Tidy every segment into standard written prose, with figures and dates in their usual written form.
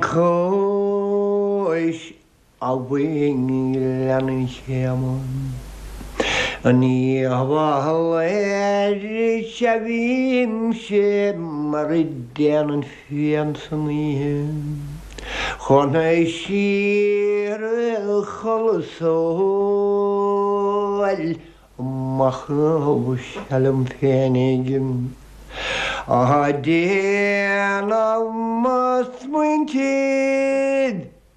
Cois Abhainn Ghleann an Chéama. In Uíbh Fhailí is ea bhímse mar a déanann fíon san oíche chun síoraí a chodladh 's óil machnamh sea liom féinig á déanamh mo smaointe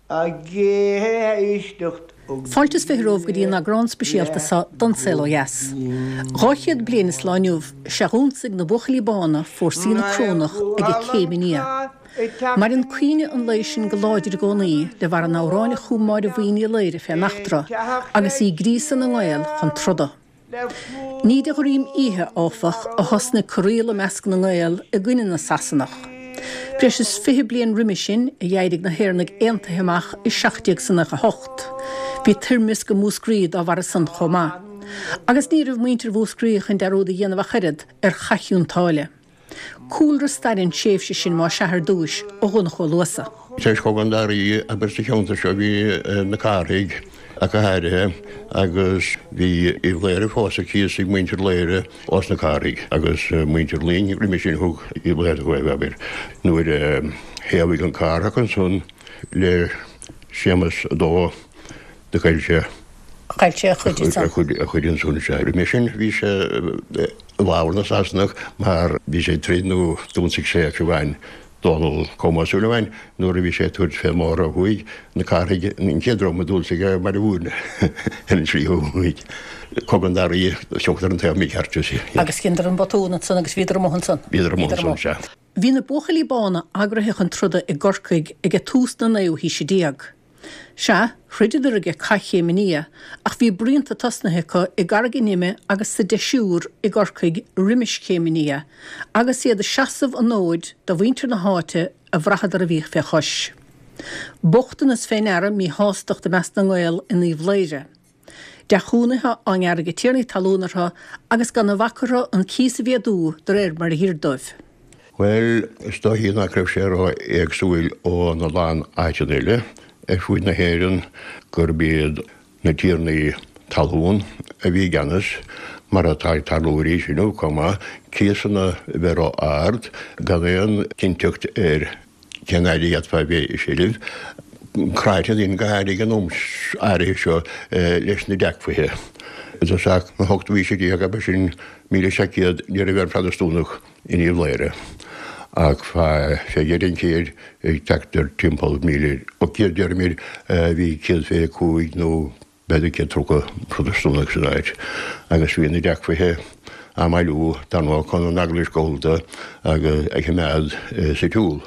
ag éisteacht Fáilte is 20 romhaibh go dtí an eagrán speisialta seo don Saol Ó Dheas. 200 bliain is lá inniu 'sea dh'ionsaigh na Buachaillí Bána fórsaí na Corónach ag Céim an Fhia. Maireann cuimhne an lae sin go láidir i gcónaí de bharr an amhráin a chum Máire Bhuí Ní Laoire fén eachtra agus í ag gríosadh na nGael chun troda. Ní de dhroim oíche, áfach, a thosnaigh corraíl i measc na nGael i gcoinne na Sasanach. Breis is 20 bliain roimhe sin a d'éirigh na hÉireannaigh Aontaithe amach i 1798. Bhí toirmeasc i Múscraí dá bharra san chomh maith. Agus ní raibh muintir Mhúscraí chun dearúd a dhéanamh ach oiread ar Chath Chionn tSáile. Cúlra staire an tréimhse sin más ea ar dtúis ó Dhonncha Ó Luasa. Tar éis Chogadh an Dara Rí, abair sa cheantar seo bhí na Cárthaigh ach go háirithe agus bhí Uíbh Laoghaire fós ar cíos ag muintir Laoghaire ós na Cárthaigh agus muintir Luing roimhe sin thug Uíbh Laoghaire dóibh abair nuair a thaobhaigh an Cárthach ansan le Séamas a Dó do chaill sé Chaill sé a chuid ansan. A chuid ansan sea. Roimhe sin bhí sé i bhfabhar na Sasanach mar bhí sé ag troid nó d'ionsaigh sé fiú amháin Dónall Colm Ó Súilleabháin nuair a bhí sé ag tabhairt fén mbóthar ó thuaidh, na Cárthaigh an chéad dream a d'ionsaigh é Baile Mhúirne ar an tslí ó thuaidh. Cogadh an Dara Rí, thiocfadar an taobh mícheart. Agus dheineadar an botún ansan agus bhíodar amuigh ansan. Bhíodar amuigh ansan, sea. Bhí na Buachaillí Bána eagraithe chun troda i gCorcaigh age tús na naoú haoise déag. Sea, throideadar age Cath Chéim an Fhia, ach bhí bruíonta tosnaithe acu i gCarraig an Ime agus sa Deisiúr i gCorcaigh roimis Chéim an Fhia, agus iad ag seasamh an fhóid do mhuintir na háite a bhraitheadar a bhíodh fé chois. Bochtanas fé ndeara míshástacht i measc na nGael in Uíbh Laoire. Deachúnaithe á ngearradh ag tiarnaí talún orthu agus gan a bhac orthu an cíos a mhéadú de réir mar a dh'oir dóibh. Bhuel, is dóichí nach raibh sé ró-éagsúil ó na lán áiteanna eile ar fuaid na hÉireann gurb iad na tiarnaí talún a bhí i gceannas, mar atá ag tarlú arís inniu chomh maith, cíosanna a bheith ró-ard, gan aon chinnteacht ar Cén fhaid a d'fhéadfá a bheith i seilbh? Cráite daoine go háirithe ag an am áirithe seo leis na deachmhaithe. I dtosach na hochtú haoise déag ab ea sin 1700 ní raibh aon Phrotastúnach in Uíbh Laoire ach fé dheireadh an chéid ag teacht ar timpeall 1800 deirimid bhí 125 nó b'fhéidir 130 Protastúnach san áit agus bhí na deachmhaithe á mbailiú dar ndóigh chun an Eaglais Gallda agus a choimeád sa tsiúl.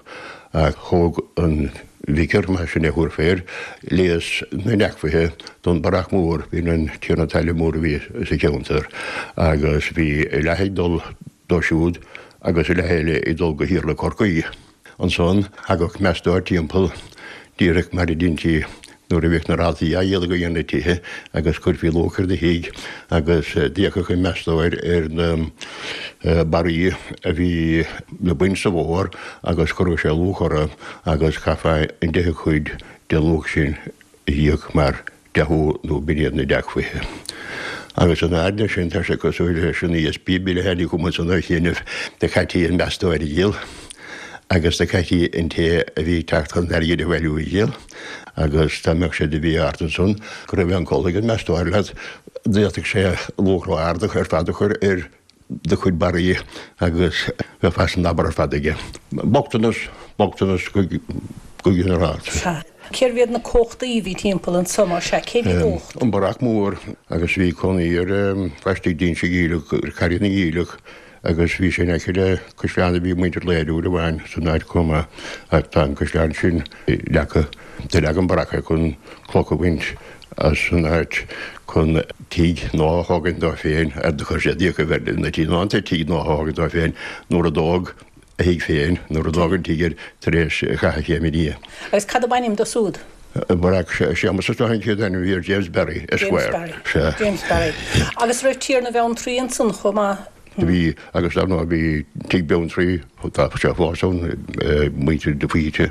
Ach thóg an vicar, mar sin é a thabharfaí air, léas na ndeachmhaithe don Barrach Mór, b'in an tiarna talaimh mór a bhí sa cheantar, agus bhí a leath ag dul dó siúd agus a leath eile ag dul go hIarla Chorcaí. Ansan thagadh meastóir timpeall, díreach mar a deintí nuair a bhíodh na rátaí á dhíol ag na tithe agus chuirfí luach ar do thigh agus d'fhéachadh an meastóir ar na barraí a bhí le baint sa bhfómhar agus chuireadh sé luach orthu agus chaithfeá an deichiú cuid den luach sin a íoc mar deachú nó b'in iad na deachmhaithe. Agus in airde sin tá sé cosúil leis an ESB bill a tháinig chugam ansan ar chianaibh do chaití an meastóir a dhíol agus do chaití an té a bhí ag teacht chun an airgid a bhailiú a dhíol agus dá mbeadh sé de mhí ard ansan go raibh aon col ag an meastóir leat d'fhéadfadh sé luach ró-ard ar fad a chur ar do chuid barraí agus bheifeá san abar ar fad aige. Bochtanas, bochtanas go ginearálta. Sea. Cérbh iad na cumhachtaí a bhí timpeall anso, más ea? Cé bhí i gcumhacht? An Barrach Mór agus bhí cónaí ar laistigh d'Inse Geimhleach, ar Charraig na nGiallach agus bhí sé in aice le caisleán a bhí ag muintir Laoire uair amháin san áit chomh maith ach tá an caisleán sin leagtha. Do leag an Barrach é chun cloch a bhaint as an áit chun tigh nua a thógaint dó féin, ar do chuir sé d'fhiachaibh air na tí ná an tigh nua a thógaint dó féin nuair a dódh a thigh féin, nuair a dódh an tigh air tar éis Chatha Chéim an Fhia. Agus cad ab ainm dó súd? Barrach Séamus is dóigh an chéad ainm a bhí air, James Barry, Esquire. James Barry. Sea. James Barry. Agus raibh Tiarna Bheanntraí ansan chomh maith? Do bhí, agus dar ndóigh bhí Tigh Bheanntraí, tá sé fós ann, muintir de Faoite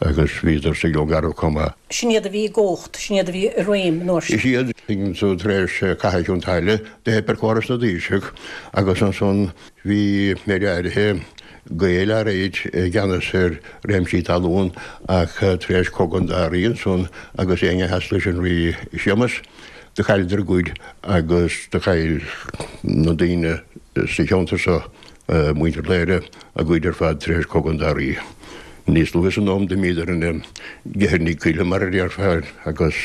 agus bhíodar sa Ghleann Garbh chomh maith. Sin iad a bhí i gcumhacht, sin iad a bhí i réim an uair sin. Is iad, so tar éis Catha Chionn tSáile, do theip ar chóras na dtaoiseach agus ansan bhí méid áirithe Gaeil áirid i gceannas ar réimsí talún ach tar éis Cogadh an Dá Rí ansan agus éinne a sheas leis an Rí Séamas, Do chailleadar a gcuid agus do chaill na daoine sa cheantar seo, muintir Chléire, a gcuid ar fad tar éis Cogadh an Dá Rí. Níos luaithe san am d'imíodar ina gceithearnaigh coille mar a déarfá agus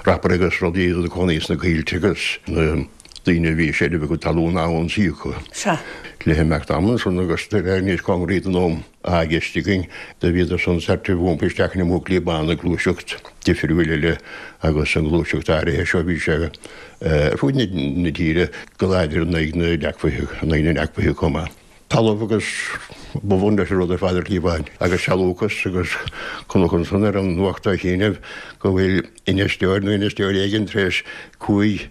rapairí agus rudaí iad ina gcónaí sna coillte agus na daoine a bhí i seilbh a gcuid talún á n-ionsaí acu. Le himeacht ama ansan agus de réir níos cóngaraí don am atá i gceist againn, do bhíodar san sort of iompaithe isteach ina mbuachaillí bána, gluaiseacht difriúil eile agus an ghluaiseacht áirithe seo bhí sé ar fud na tíre go láidir in aghaidh na dTeagmhaithe, in aghaidh na dTeagmhaithe chomh maith. Talamh agus ba bhun leis an rud ar fad ar shlí amháin agus sealúchas agus chonac ansan ar an nuacht á shíneadh go bhfuil infheisteoir nó infheisteoir éigin tar éis 5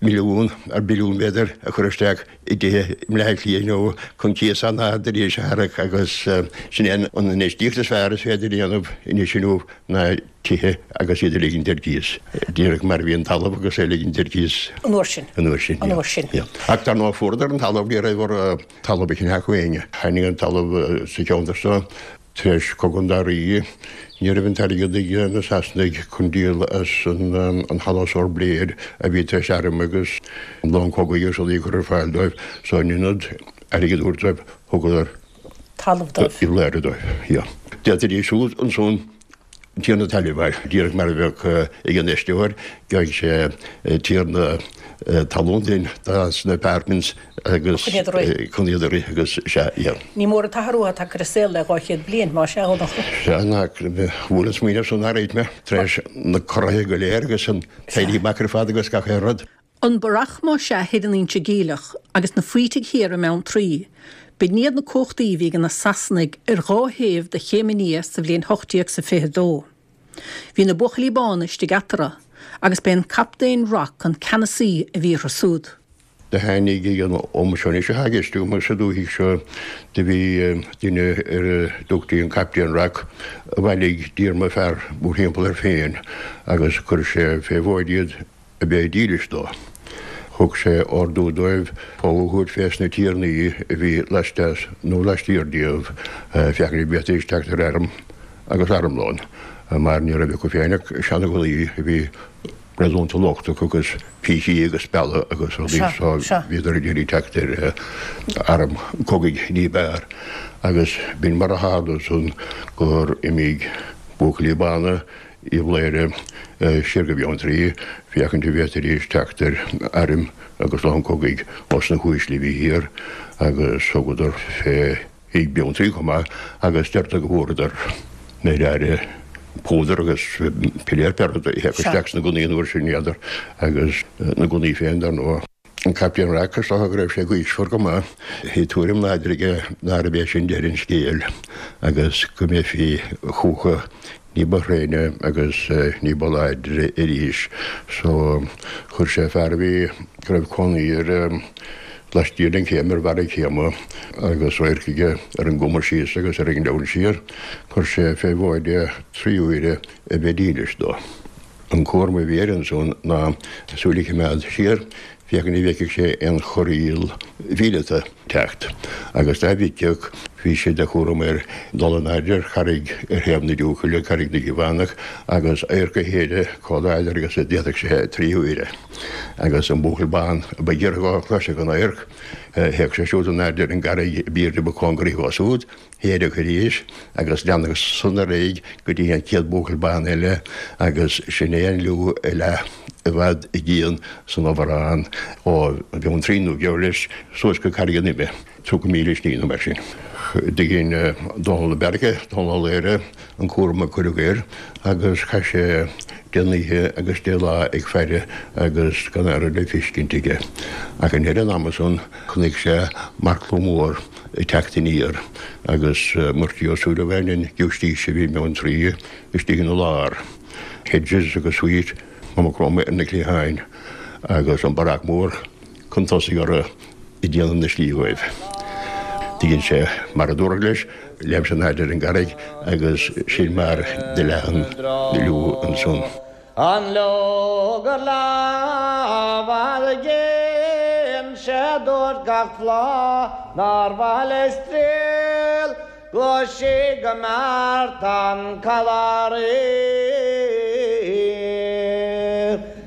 milliún, ar billiún b'fhéidir, a chur isteach i dtithe i mBleá Cliath inniu chun cíos an-ard arís a tharrac agus sin é an infheistíocht is fearr is féidir a dhéanamh anois inniu ná tithe agus iad a ligint ar cíos. Díreach mar a bhí an talamh agus é a ligint ar cíos. An uair sin. An uair sin. An uair sin. Ach dar ndóigh fuaireadar an talamh ní raibh orthu talamh a cheannach ó éinne. Tháinig an talamh sa cheantar seo Tar éis Cogadh an Dá Rí, ní raibh an t-airgead ag na Sasanaigh chun díol as an Halla Blair a bhí tar éis airm agus long cogaidh agus rudaí a chur ar fáil dóibh, so in ionad airgead a thabhairt dóibh, thugadar talamh dóibh. Uíbh Chléire dóibh, yeah. D'fhéadfaidís siúd ansan tiarna talaimh a fháil, díreach mar a bheadh ag an infheisteoir, gheobhaidh sé tiarna talún duinn sna apartments agus Chun iad a rith. chun iad a rith agus sea, yeah. Ní mór an t-athrú atá tagtha ar an saol le 200 bliain, más ea, a Dhonncha. Sea, ná bhuail an smaoineamh san arís mé, tar éis na corraithe go léir agus an t-éirí amach ar fad agus gach aon rud. An Barrach más ea thoir in Inse Geimhleach agus na Faoitigh thiar i mBeanntraí, b'in iad na cumhachtaí a bhí ag na Sasanaigh ar dhá thaobh de Chéim an Fhia sa bhliain 1822. Bhí na Buachaillí Bána istigh eatarthu agus b'é an Captaen Rock an ceannasaí a bhí orthu súd. Do tháinig ag an am seo anois atá i gceist agam sa dúthaigh seo do bhí duine ar a dtugtaí an Captaen Rock a bhailigh díorma fear mórthimpeall air féin agus chuir sé fé mhóid iad a bheith dílis dó. Thug sé ordú dóibh fogha a thabhairt fés na tiarnaí a bhí laisteas nó laistiar díobh, féachaint an bhféadfaidís teacht ar airm agus armlón, mar ní raibh acu féin ach seana-ghunnaí a bhí réasúnta lochtach agus pící agus speala agus rudaí so bhíodar ag iarraidh teacht ar arm cogaidh ní b'fhearr. Agus b'in mar a tharla ansan gur imigh buachaillí bána Uíbh Chléire siar go Beanntraí féachaint an bhféadfaidís teacht ar airm agus long cogaidh ós na huaisle a bhí thiar agus thugadar fé thigh Beanntraí chomh maith agus deirtear go bhfuaireadar méid áirithe púdair agus piléar pé rud a théadh isteach sna gunnaí an uair sin n'fheadar agus na gunnaí féin dar ndóigh. An Captaen Rock, is dócha go raibh sé gaoismhear go maith. Bhí tuairim láidir aige nárbh é sin deireadh an scéil agus go mbeifí chucu ní ba thréine agus ní ba láidre arís. So, chuir sé fear a bhí, go raibh cónaí air laistiar den chéim, ar bharra céime agus radharc aige ar an gcuma síos agus ar an ngleann siar, chuir sé fé mhóid é 3 huaire a bheith dílis dó. An cúram a bhí air ansan ná súil a choimeád siar féachaint an bhfeicfeadh sé aon chorraíl mhíleata ag teacht agus dá bhfeicfeadh bhí sé de chúram air dul in airde ar charraig ar thaobh na Diúchaile, Carraig na gCliabhánach, agus adharc a shéideadh chomh láidir agus a d'fhéadfadh sé 3 huaire. Agus an buachaill bán a ba ghiorra dhó a chloisfeadh an adharc, théadh sé siúd in airde ar an gcarraig ab aoirde ba cóngaraí dhó súd, shéideadh arís agus leanadh san ar aghaidh go dtí an chéad bhuachaill bán eile agus sin é an liú a leath i bhfad i gcian san Obharán ó Bheanntraí nó geall leis suas go Carraig an Ime, 30 míle slí nó mar sin. Do dhein Dónal de Búrca, Dónal Ó Laoghaire, an cúram a cuireadh air agus chaith sé deich n-oíche agus deich lá ag faire agus gan aon rud le feiscint aige. Ach i ndeireadh an ama san chonaic sé marcla mór ag teacht aniar agus Murty Ó Súilleabháin, an giúistís a bhí i mBeanntraí, istigh ina lár. Hedges agus Sweet, Maigh Chromtha ar na cliatháin agus an Barrach Mór chun tosaigh orthu. Ag déanamh na slí dhóibh. Do dhein sé mar a dúradh leis, léim sé in airde ar an gcarraig agus sin mar do leath an liú ansan. An leogar lámh a dhein sé dúirt gach bláth nár mhaith leis triall Ghlaoigh sí go mbeart an callairín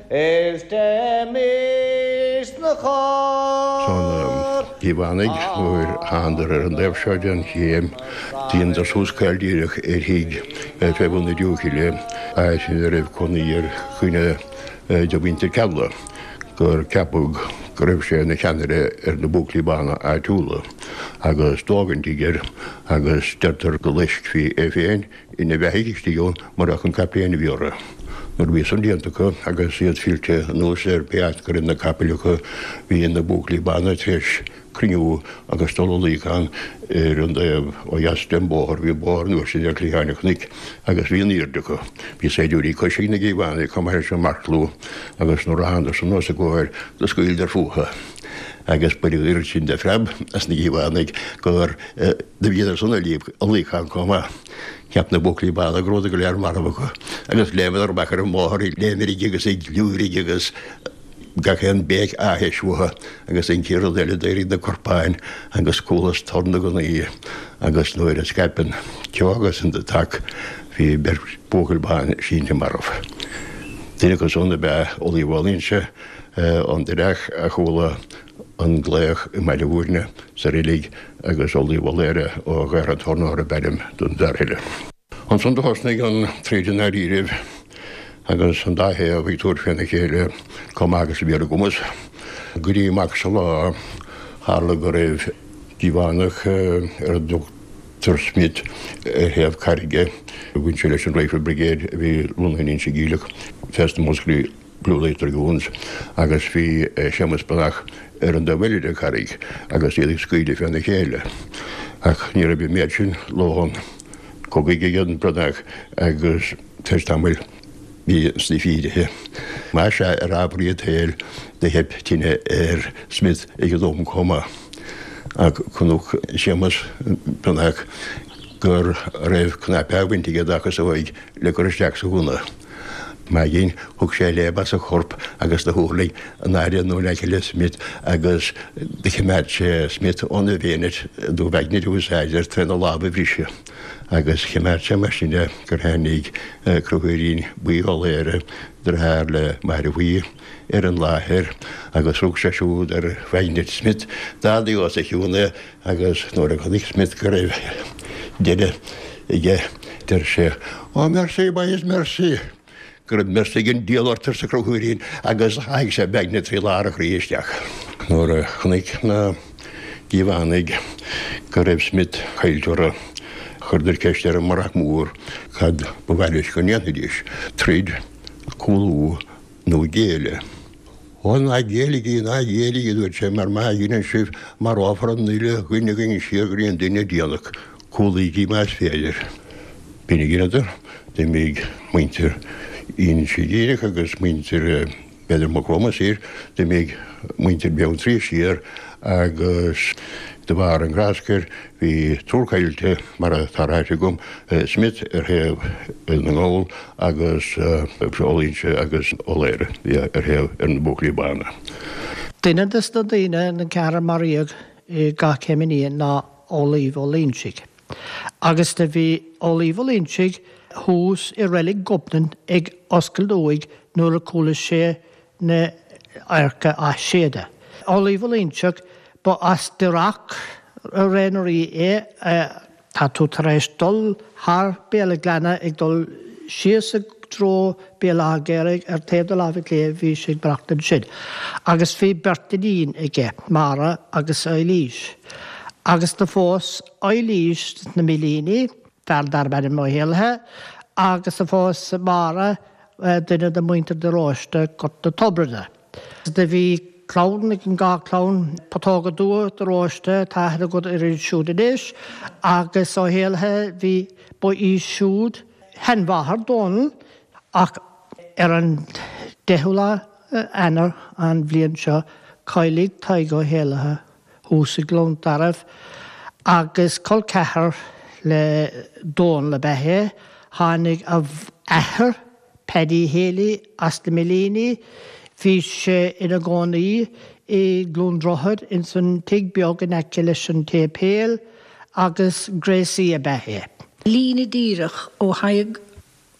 is téimís 'na chóir. Tá na Cíobhánaigh nuair a thánadar ar an dtaobh seo den chéim, dheineadar suas caol díreach ar thigh fé bhun na dúchoille, áit ina raibh cónaí ar dhuine de mhuintir Cealla. gur ceapadh go raibh sé ina cheannaire ar na Buachaillí Bána áitiúla agus dódh an tigh air agus deirtear go loiscfí é féin ina bheathaidh istigh ann murach an captaen a bhí orthu. Nuair a bhí san déanta acu agus iad fillte anuas ar pé áit go raibh na capaill acu bhí na Buachaillí Bána tar éis cruinniú agus dul i luíochán ar an dtaobh ó dheas den bhóthar. Bhí bóthar an uair sin ar chliatháin an chnoic agus bhí in airde acu. Bhí saighdiúirí coise ag na Cíobhánaigh chomh maith leis an marcslua agus nuair a thánadar san os a gcomhair do scaoileadar fúthu agus baineadh oiread sin de phreab as na Cíobhánaigh gur do bhíodar san i luíochán chomh maith. Cheap na Buachaillí Bána go rabhadar go léir marbh acu agus léimeadar amach ar an mbóthar ag léimirigh agus ag liúirigh agus gach aon bhéic áthais uathu agus an chéad rud eile d'éirigh na corpáin agus chualas torann na ngunnaí agus nuair a scaip an ceo agus an toc bhí beirt buachaill ban sínte marbh. Duine acu san ab ea Amhlaoibh Ó Loingsigh ón Doireach a chuala an glaoch i mBaile Mhúirne sa reilig agus Amhlaoibh Ó Laoire ó Ghaorthadh an Tornóra ab ainm don bhfear eile. Ansan do thosnaigh an troid i ndáiríribh agus an dá thaobh ag tabhairt féna chéile chomh maith agus a bhí ar a gcumas. Go dtí amach sa lá, tharla go raibh Cíobhánach ar a dtugtar Smith ar thaobh carraige. Bhain sé leis an Rifle Brigade a bhí lonnaithe in Inse Geimhleach fés na Muscraí. Blue Light Dragoons, agus bhí Séamus Breathnach ar an dtaobh eile den charraig agus iad ag scaoileadh féna chéile. Ach ní raibh an méad sin lóchrann cogaidh ag an Breathnach agus tar éis tamaill bhí Smith éirithe. Más ea, ar ámharaí an tsaoil do theip tine ar Smith ag an am chomh maith. Ach chonac Séamus Breathnach go raibh cnaipe á bhaint aige dá chasóig le cur isteach sa ghunna. Maidin, thug sé léim as a chorp agus do thuirling in airde nó in aice le Smith agus do choimeád sé Smith óna bhayonet nó baignit a úsáid air tréna lámh a bhriseadh agus choimeád sé mar sin é gur tháinig Conchúirín Buí Ó Laoire, deartháir le Máire Bhuí, ar an láthair agus rug sé siúd ar bhaignit Smith, d'ardaigh os a chionn é Agus nuair a chonaic Smith go raibh deireadh aige, deir sé, Oh mercy, boys, mercy! Go raibh mercy ag an diabhal ort, arsa Conchúirín, agus sháigh sé baignit trí lár a chroí isteach. Nuair a chonaic na Cíobhánaigh go raibh Smith caillte orthu, chuireadar ceist ar an mBrionac Mór cad ba mhaith leis go ndéanfaidís, troid, cúlú nó géilleadh. Ó, ná géilligí, ná géilligí, a dúirt sé, mar má dheineann sibh, marófar an uile dhuine againn siar go dtí an duine déanach. Cúlaígí más féidir. B'in a dheineadar. D'imigh muintir Inse Geimhleach agus muintir, b'fhéidir, Maigh Chromtha siar, d'imigh muintir Bheanntraí siar agus de bharr an ghráscair bhí triúr caillte, mar atá ráite agam, Smith ar thaobh na nGall agus Ó Loingsigh agus Ó Laoire ar thaobh ar na Buachaillí Bána. Duine de na daoine, den cheathrar a maraíodh i gCath Chéim an Fhia ná Amhlaoibh Ó Loingsigh. Agus do bhí Amhlaoibh Ó Loingsigh thuas i reilig Ghobnann ag oscailt uaigh nuair a chuala sé na hadharca á séideadh. Amhlaoibh Ó Loingsigh, ba as Doireach Ré na Rí é. Tá tú tar éis dul thar Béal an Ghleanna ag dul síos i dtreo Béal Átha Ghéaraigh ar taobh do láimhe clé bhí sé ag maireachtaint ansin. Agus bhí beirt iníon aige, Máire agus Eilís. Agus do phós Eilís sna Millíní, fear darb ainm Ó hÉallaithe, agus do phós Máire duine de mhuintir de Róiste, Gort na Tobride. Do bhí clann ag an dhá chlann, Putóga Dubha de Róiste, tá aithne agat uirthi siúd anois, agus Ó hÉallaithe, bhí, ba í siúd sheanmháthair Dónall, ach ar an deichiú lá Eanáir an bhliain seo, cailleadh Tadhg Ó hÉallaithe. thuas i gCluain Tarbh agus col ceathar le Dónal ab ea é. Tháinig a athair, Paddy Healy, as na Millíní. Bhí sé ina gcónaí i gCluain Droichead ins an tigh beag in aice leis an tséipéal agus gréasaí ab ea é. Líne díreach ó Thadhg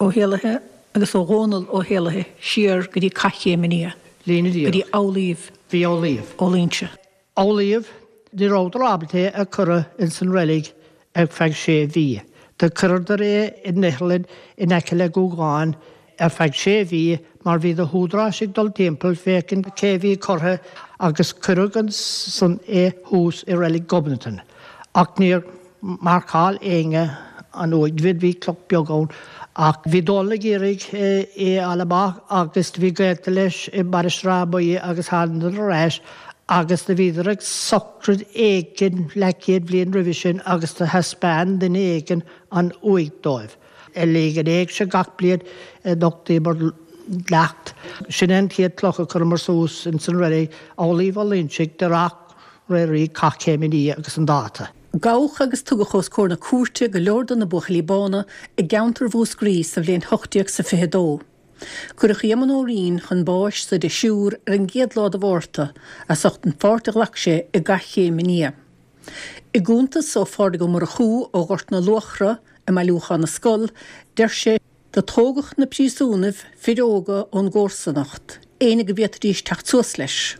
Ó hÉallaithe agus ó Dhónall Ó hÉallaithe siar go dtí Cath Chéim an Fhia, Líne go dtí díreach. Amhlaoibh Bhí Amhlaoibh. Ó Loingsigh. Amhlaoibh, ní rabhadar ábalta é a chur ins an reilig ar feadh sé mhí. Do chuireadar é in iothlainn in aice le Gúgán ar feadh sé mhí mar bhí na húdaráis ag dul timpeall féachaint cé bhí curtha agus cuireadh ansan é thuas i reilig Ghobnatan. Ach níor mharcáil éinne an uaigh. Bhí cloch beag ann ach bhí Dónal ag iarraidh é a fháil amach agus do bhí gaolta leis i Mainistir Átha Buí agus thánadar ar ais agus do bhíodar ag socraid éigin leathchéad bhliain roimhe sin agus do thaispeáin duine éigin an uaigh dóibh. I léig an éigse gach bliain nochtaíomar leacht. Sin é an chéad chloch a chuireamar suas ins an reilig, Amhlaoibh Ó Loingsigh, de Reacht Fhraoraí Cath Chéim an Fhia agus an dáta. Gabhadh agus tugadh os comhair na cúirte go leor de na Buachaillí Bána i gceantar Mhúscraí sa bhliain 1822. Cuireadh Éamonn Ó Rinn chun báis sa deichniúr ar an gcéad lá de Mhárta as ucht an pháirt a ghlac sé i gCath Chéim an Fhia. I gcuntas ó Phádraig Ó Murchú ó Ghort na Luachra i mBailiúchán na Scol, deir sé, Do tógadh na príosúnaibh, fir óga ón gcomharsanacht, éinne go bhféadfaidís teacht suas leis.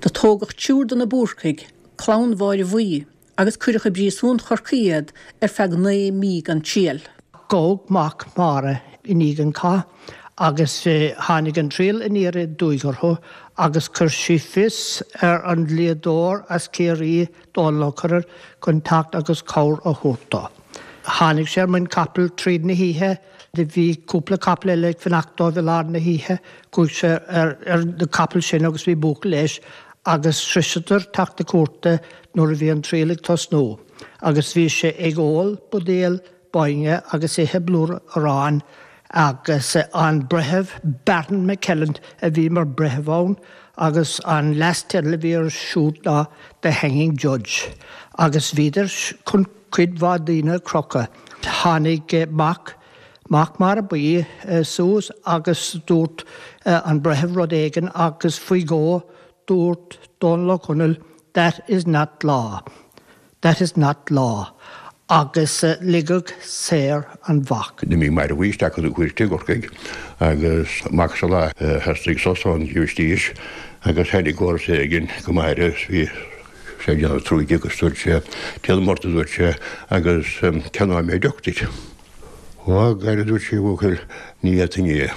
Do tógadh triúr de na Búrcaigh, clann Mháire Bhuí, agus cuireadh i bpríosún Chorcaí iad ar feadh 9 mí gan triail. Gabhadh mac Máire i ndiaidh an chath agus tháinig an triail aniar aduaidh orthu agus chuir sí fios ar an dlíodóir as Ciarraí, Dónal Ó Corraidh, chun teacht agus cabhair a thabhairt dó. Tháinig sé ar muin capaill tríd na hoíche. Do bhí cúpla capall eile ag fanacht dóibh i lár na hoíche. Chuaigh sé ar na capaill sin agus bhí buachaill leis agus shroiseadar teach na cúirte nuair a bhí an triail ag tosnú agus bhí sé ag ól buidéal bainne agus ithe blúire aráin agus an breitheamh Baron McClelland a bhí mar breitheamh ann agus an leas-teideal a bhí air siúd ná The Hanging Judge agus bhíodar chun cuid mhaith daoine a chrochadh. Tháinig mac, mac Máire Buí suas agus dúirt an breitheamh rud éigin agus faoi dhó dúirt Dónal Ó Conaill That is not law. That is not law. Agus ligeadh saor an mhac. D'imigh Máire Bhuí isteach chun na cúirte i gCorcaigh agus amach sa lá theastaigh sos ón ghiúistís agus tháinig comharsa éigin go Máire is bhí sé ag déanamh trúige agus dúirt sé, Déanam ort a dúirt sé agus ceannóidh mé deoch duit. Ó, a a dúirt sí, a bhuachaill, ní fhéadfainn é.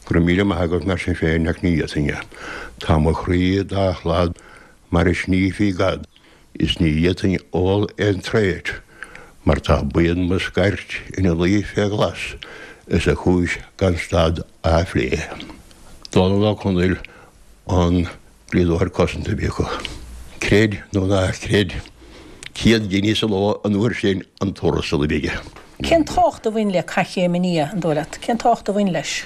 Go raibh míle maith agat mar sin féin ach ní fhéadfainn é. Tá mo chroí dá shlad mar a shnífí gad. Is ní fhéadfainn ól aon traot mar tá buíon mo scairt ina luí fé ghlas is a chúis gan stad á phlé. Dónal Ó Conaill an dlíodóir cosanta a bhí acu. Creid nó ná creid, 100 giní sa ló an uair sin an tuarastal a bhí aige. Cén tábhacht a bhain le Cath Chéim an Fhia, an dóigh leat? Cén tábhacht a bhain leis?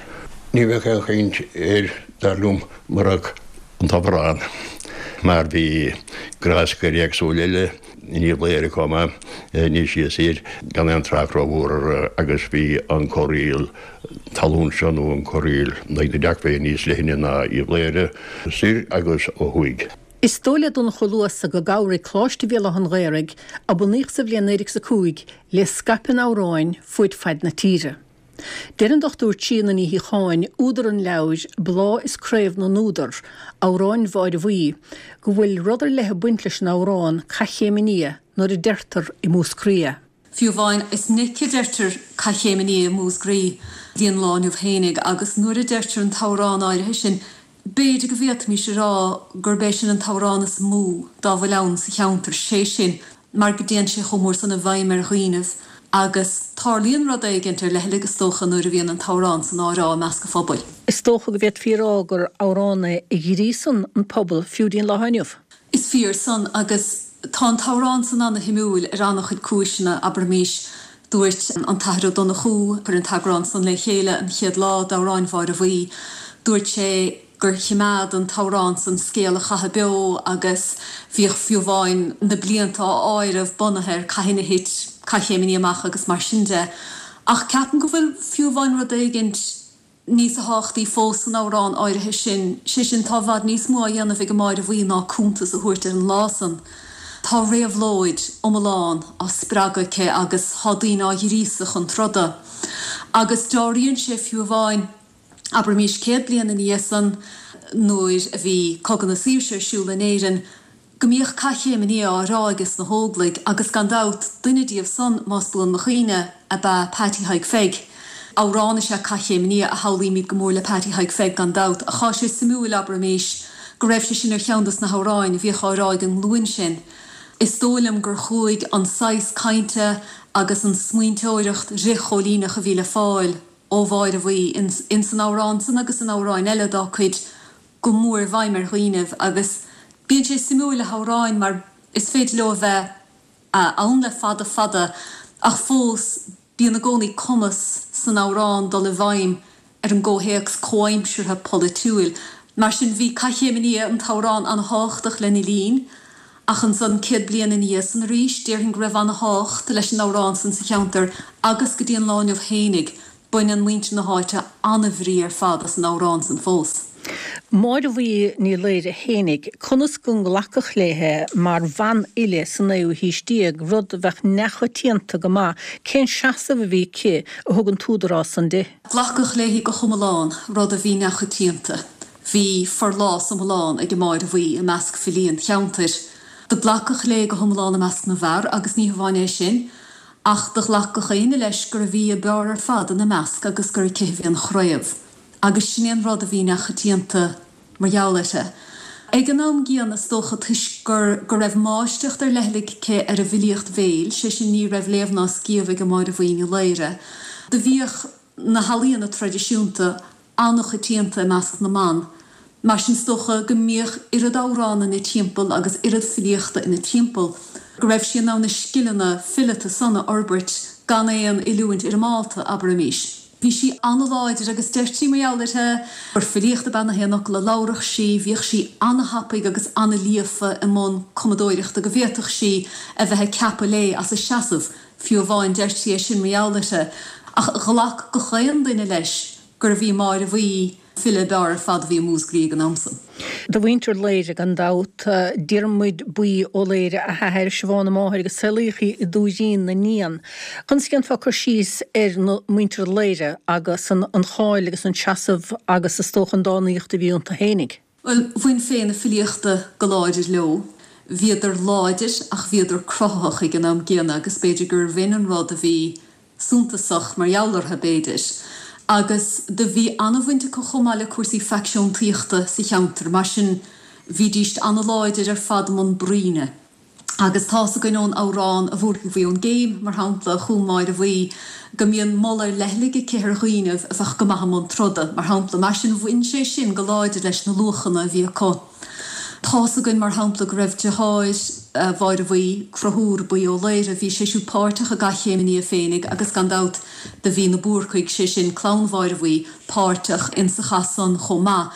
Ní bheadh aon chaint air, dar liom, murach an t-amhrán, mar bhí gráscairí éagsúla eile in Uíbh Laoghaire chomh maith, níos sia soir, gan aon trácht rómhór orthu agus bhí an corraíl talún seo nó an corraíl in aghaidh na dTeachmhaidhe níos leithne ná Uíbh Laoghaire soir agus ó thuaidh. Is dóigh le Donncha Ó Luasa go gcabhraigh Coláiste Bhéal Átha an Ghaorthaidh, a bunaíodh sa bhliain 1905, le scaipeadh an amhráin fuaid faid na tíre. Deir an Dr Tríona Ní Shíocháin, údar an leabhair Bláth is Craobh na nÚdar, Amhráin Mháire Bhuí, go bhfuil rud ar leith ag baint leis an amhrán Cath Chéim an Fhia nuair a deirtear i Múscraí é. Fiú amháin, is minic a deirtear Cath Chéim an Fhia i Múscraí dtí an lá inniu fhéinig agus nuair a deirtear an t-amhrán áirithe sin, b'fhéidir go bhféadfaimis a rá gurb é sin an t-amhrán is mó dá bhfuil ann sa cheantar, sé sin mar go dtéann sé chomh mór san i bhfeidhm ar dhaoinibh agus tarlaíonn rud éigint ar leithligh is dócha nuair a bhíonn an t-amhrán san á rá i measc an phobail. Is dócha go bhféadfaí a rá gur amhrán é a ghríosann an pobal fiú dtí'n lá inniu. Is fíor san agus tá an t-amhrán san ana-shuimiúil ar ana-chuid cúiseanna, abraimís. Dúirt an tAthair Ó Donnchú, a chuir an t-eagrán san le chéile an chéad lá d'Amhráin Mháire Bhuí, dúirt sé. gur chimeád an t-amhrán san scéal an chatha beo agus bhíodh fiú amháin na blianta á áireamh bunaithe ar cathain a thit Cath Chéim an Fhia amach agus mar sin de. Ach ceapaim go bhfuil fiú amháin rud éigint níos tábhachtaí fós san amhrán áirithe sin, sé sin tá i bhfad níos mó á dhéanamh ag an Máire Bhuí ná cuntas a thabhairt ar an lá san. Tá réabhlóid iomlán á spreagadh aici agus tá daoine á ghríosadh chun troda. Agus dealraíonn sé fiú amháin, abraimís 100 bliain ina dhiaidh san, nuair a bhí Cogadh na Saoirse ar siúl in Éirinn, go mbíodh Cath Chéim an Fhia á rá ages na hÓglaigh agus gan dabht duine díobh san, más buan mo chuimhne, ab ea Patty Thaidhg Pheig. Amhrán is ea Cath Chéim an Fhia a shamhlaímid go mór le Patty Thaidhg Pheig gan dabht, ach tá sé suimiúil, abraimís, go raibh sé sin ar cheann dos na hamhráin a bhíodh á rá ag an nglúin sin. Is dóigh liom gur chuaigh an saghas cainte agus an smaointeoireacht fhrith-chóilíneach a bhí le fáil ó Mháire Bhuí ins an amhrán san agus in amhráin eile dá cuid go mór i bhfeidhm ar dhaoinibh agus bíonn sé suimiúil le hamhráin mar is féidir leo a bheith ann le fada fada ach fós bíonn i gcónaí cumas san amhrán dul i bhfeidhm ar an gcomhthéacs comhaimseartha polaitiúil. Mar sin bhí Cath Chéim an Fhia, an t-amhrán, an-thábhachtach lena linn ach ansan 100 bliain ina dhiaidh san arís déarfainn go raibh an-thábhacht leis an amhrán san sa cheantar agus go dtí an lá inniu fhéinig Baineann muintir na háite an-bhrí ar fad as an amhrán san fós. Máire Bhuí Ní Laoire fhéinig, conas go nglacadh léithe mar bhanfhile sa naoú haois déag, rud a bheadh neamhchoitianta go maith, cén seasamh a bhí aici a thug an t-údarás san di? Glacadh léi go hiomlán, rud a bhí neamhchoitianta. Bhí forlás iomlán ag an Máire Bhuí i measc filí an cheantair. Do glacadh léi go hiomlán i measc na bhfear agus ní hamháin é sin, Ach do ghlac gach éinne leis gurbh í a b'fhearr ar fad ina measc agus gur aici a bhí an chraobh. Agus sin é an rud a bhí neamhchoitianta mar gheall uirthi. Ag an am gcéanna, is dócha, toisc gur go raibh máistreacht ar leithligh aici ar an bhfilíocht bhéil, sé sin ní raibh léamh ná scíobh ag an Máire Bhuí Ní Laoire, do bhíodh na healaíona traidisiúnta an-choitianta i measc na mban. Mar sin is dócha go mbíodh oiread amhrán ina timpeall agus oiread filíochta ina timpeall go raibh sí in ann na scileanna fileata san a fhorbairt gan aon oiliúint fhoirmeálta, abraimis. Bhí sí an-láidir agus deirtí mar gheall uirthi gur filíocht ab ea na haon fhocal a labhradh sí, bhíodh sí an-thapaidh agus an-líofa i mbun cumadóireachta go bhféadfadh sí a bheith ag ceapadh léi as a seasamh, fiú amháin, deirtí é sin mar gheall uirthi. Ach ghlac gach aon duine leis gurbh í Máire Bhuí file ab fhearr ar fad a bhí i Múscraí ag an am san. De mhuintir Laoire gan dabht, Diarmuid Buí Ó Laoire a hathair, Siobhán a máthair agus saolaíodh í i dTuairín na nIan. Conas a dhéanfá cur síos ar na muintir Laoire agus an cháil agus an seasamh agus is dócha an dánaíocht a bhí iontu fhéinig? Bhuel, bhain féith na filíochta go láidir leo. Bhíodar láidir ach bhíodar cruthaitheach ag an am gcéanna agus b'fhéidir gur bh'in an rud a bhí suntasach mar gheall orthu, b'fhéidir. Agus do bhí an-bhaint acu chomh maith le cúrsaí faicseantaíochta sa cheantar, mar sin bhídíst an-láidir ar fad i mbun bruíne. Agus tá's againn ón amhrán A Bhúrcaigh Bhuí ón gCéim, mar shampla, a chum Máire Bhuí, go mbíonn moladh ar leithligh aici ar dhaoinibh a bheadh go maith i mbun troda, mar shampla. Mar sin, bhain sé sin go láidir leis na luachanna a bhí acu. Tá's againn, mar shampla, go raibh deartháir Mháire Bhuí, Conchúr Buí Ó Laoire, bhí sé siúd páirteach i gCath Chéim an Fhia féinig agus gan dabht do bhí na Búrcaigh, sé sin clann Mháire Bhuí, páirteach insa chath san chomh maith.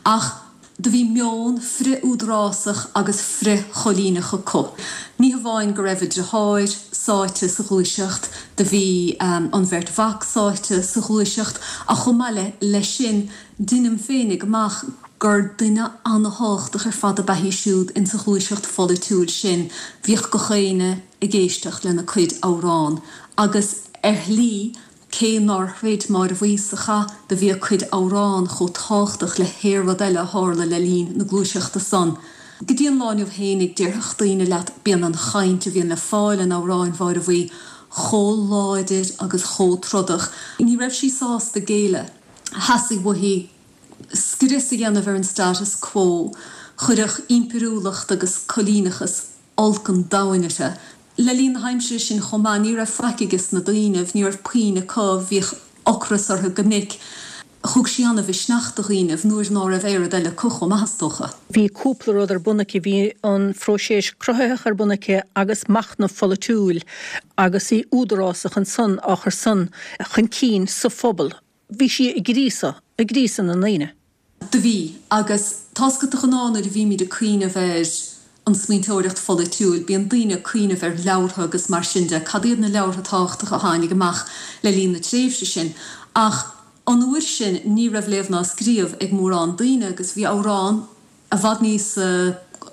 Ach. Do bhí meon frith-údarásach agus frith-choilíneach acu. Ní hamháin go raibh a deartháir sáite sa ghluaiseacht, do bhí an bheirt mhac sáite sa ghluaiseacht, ach chomh maith leis sin, deinim féinig amach gur duine ana-thábhachtach ar fad ab ea í siúd insa ghluaiseacht pholaitiúil sin. Bhíodh gach éinne ag éisteacht lena cuid amhrán agus ar shlí, Cé nár throid Máire Bhuí sa chath, do bhí a cuid amhrán chomh tábhachtach le haon rud eile a tharla le linn na gluaiseachta san. Go dtí an lá inniu fhéinig, déarfadh daoine leat, bíonn an chaint a bhíonn le fáil in amhráin Mháire Bhuí chomh láidir agus chomh trodach. Ní raibh sí sásta géilleadh. Theastaigh uaithi scrios a dhéanamh ar an status quo. Chuirfeadh impiriúlacht agus coilíneachas olc an domhain uirthi. Le linn na haimsire sin chomh maith, ní raibh faic ages na daoinibh, ní raibh puinn acu, bhíodh ocras orthu go minic. Thug sí ana-mhisneach do dhaoinibh nuair ná raibh aon rud eile acu chomh maith, is dócha. Bhí cúpla rud ar bun aici, bhí an phróiseas cruthaitheach ar bun aici agus machnamh pholaitiúil agus í údarásach ansan á chur san chun cinn sa phobal. Bhí sí ag gríosadh, ag gríosadh na ndaoine. Do bhí. Agus tá's agat de ghnáth nuair a bhímid ag cuimhneamh ar an smaointeoireacht pholaitiúil, bíonn daoine ag cuimhneamh ar leabhartha agus mar sin de, cad iad na leabhartha tábhachtacha a tháinig amach le linn na tréimhse sin. Ach an uair sin ní raibh léamh ná scríobh ag mórán daoine agus bhí amhrán i bhfad níos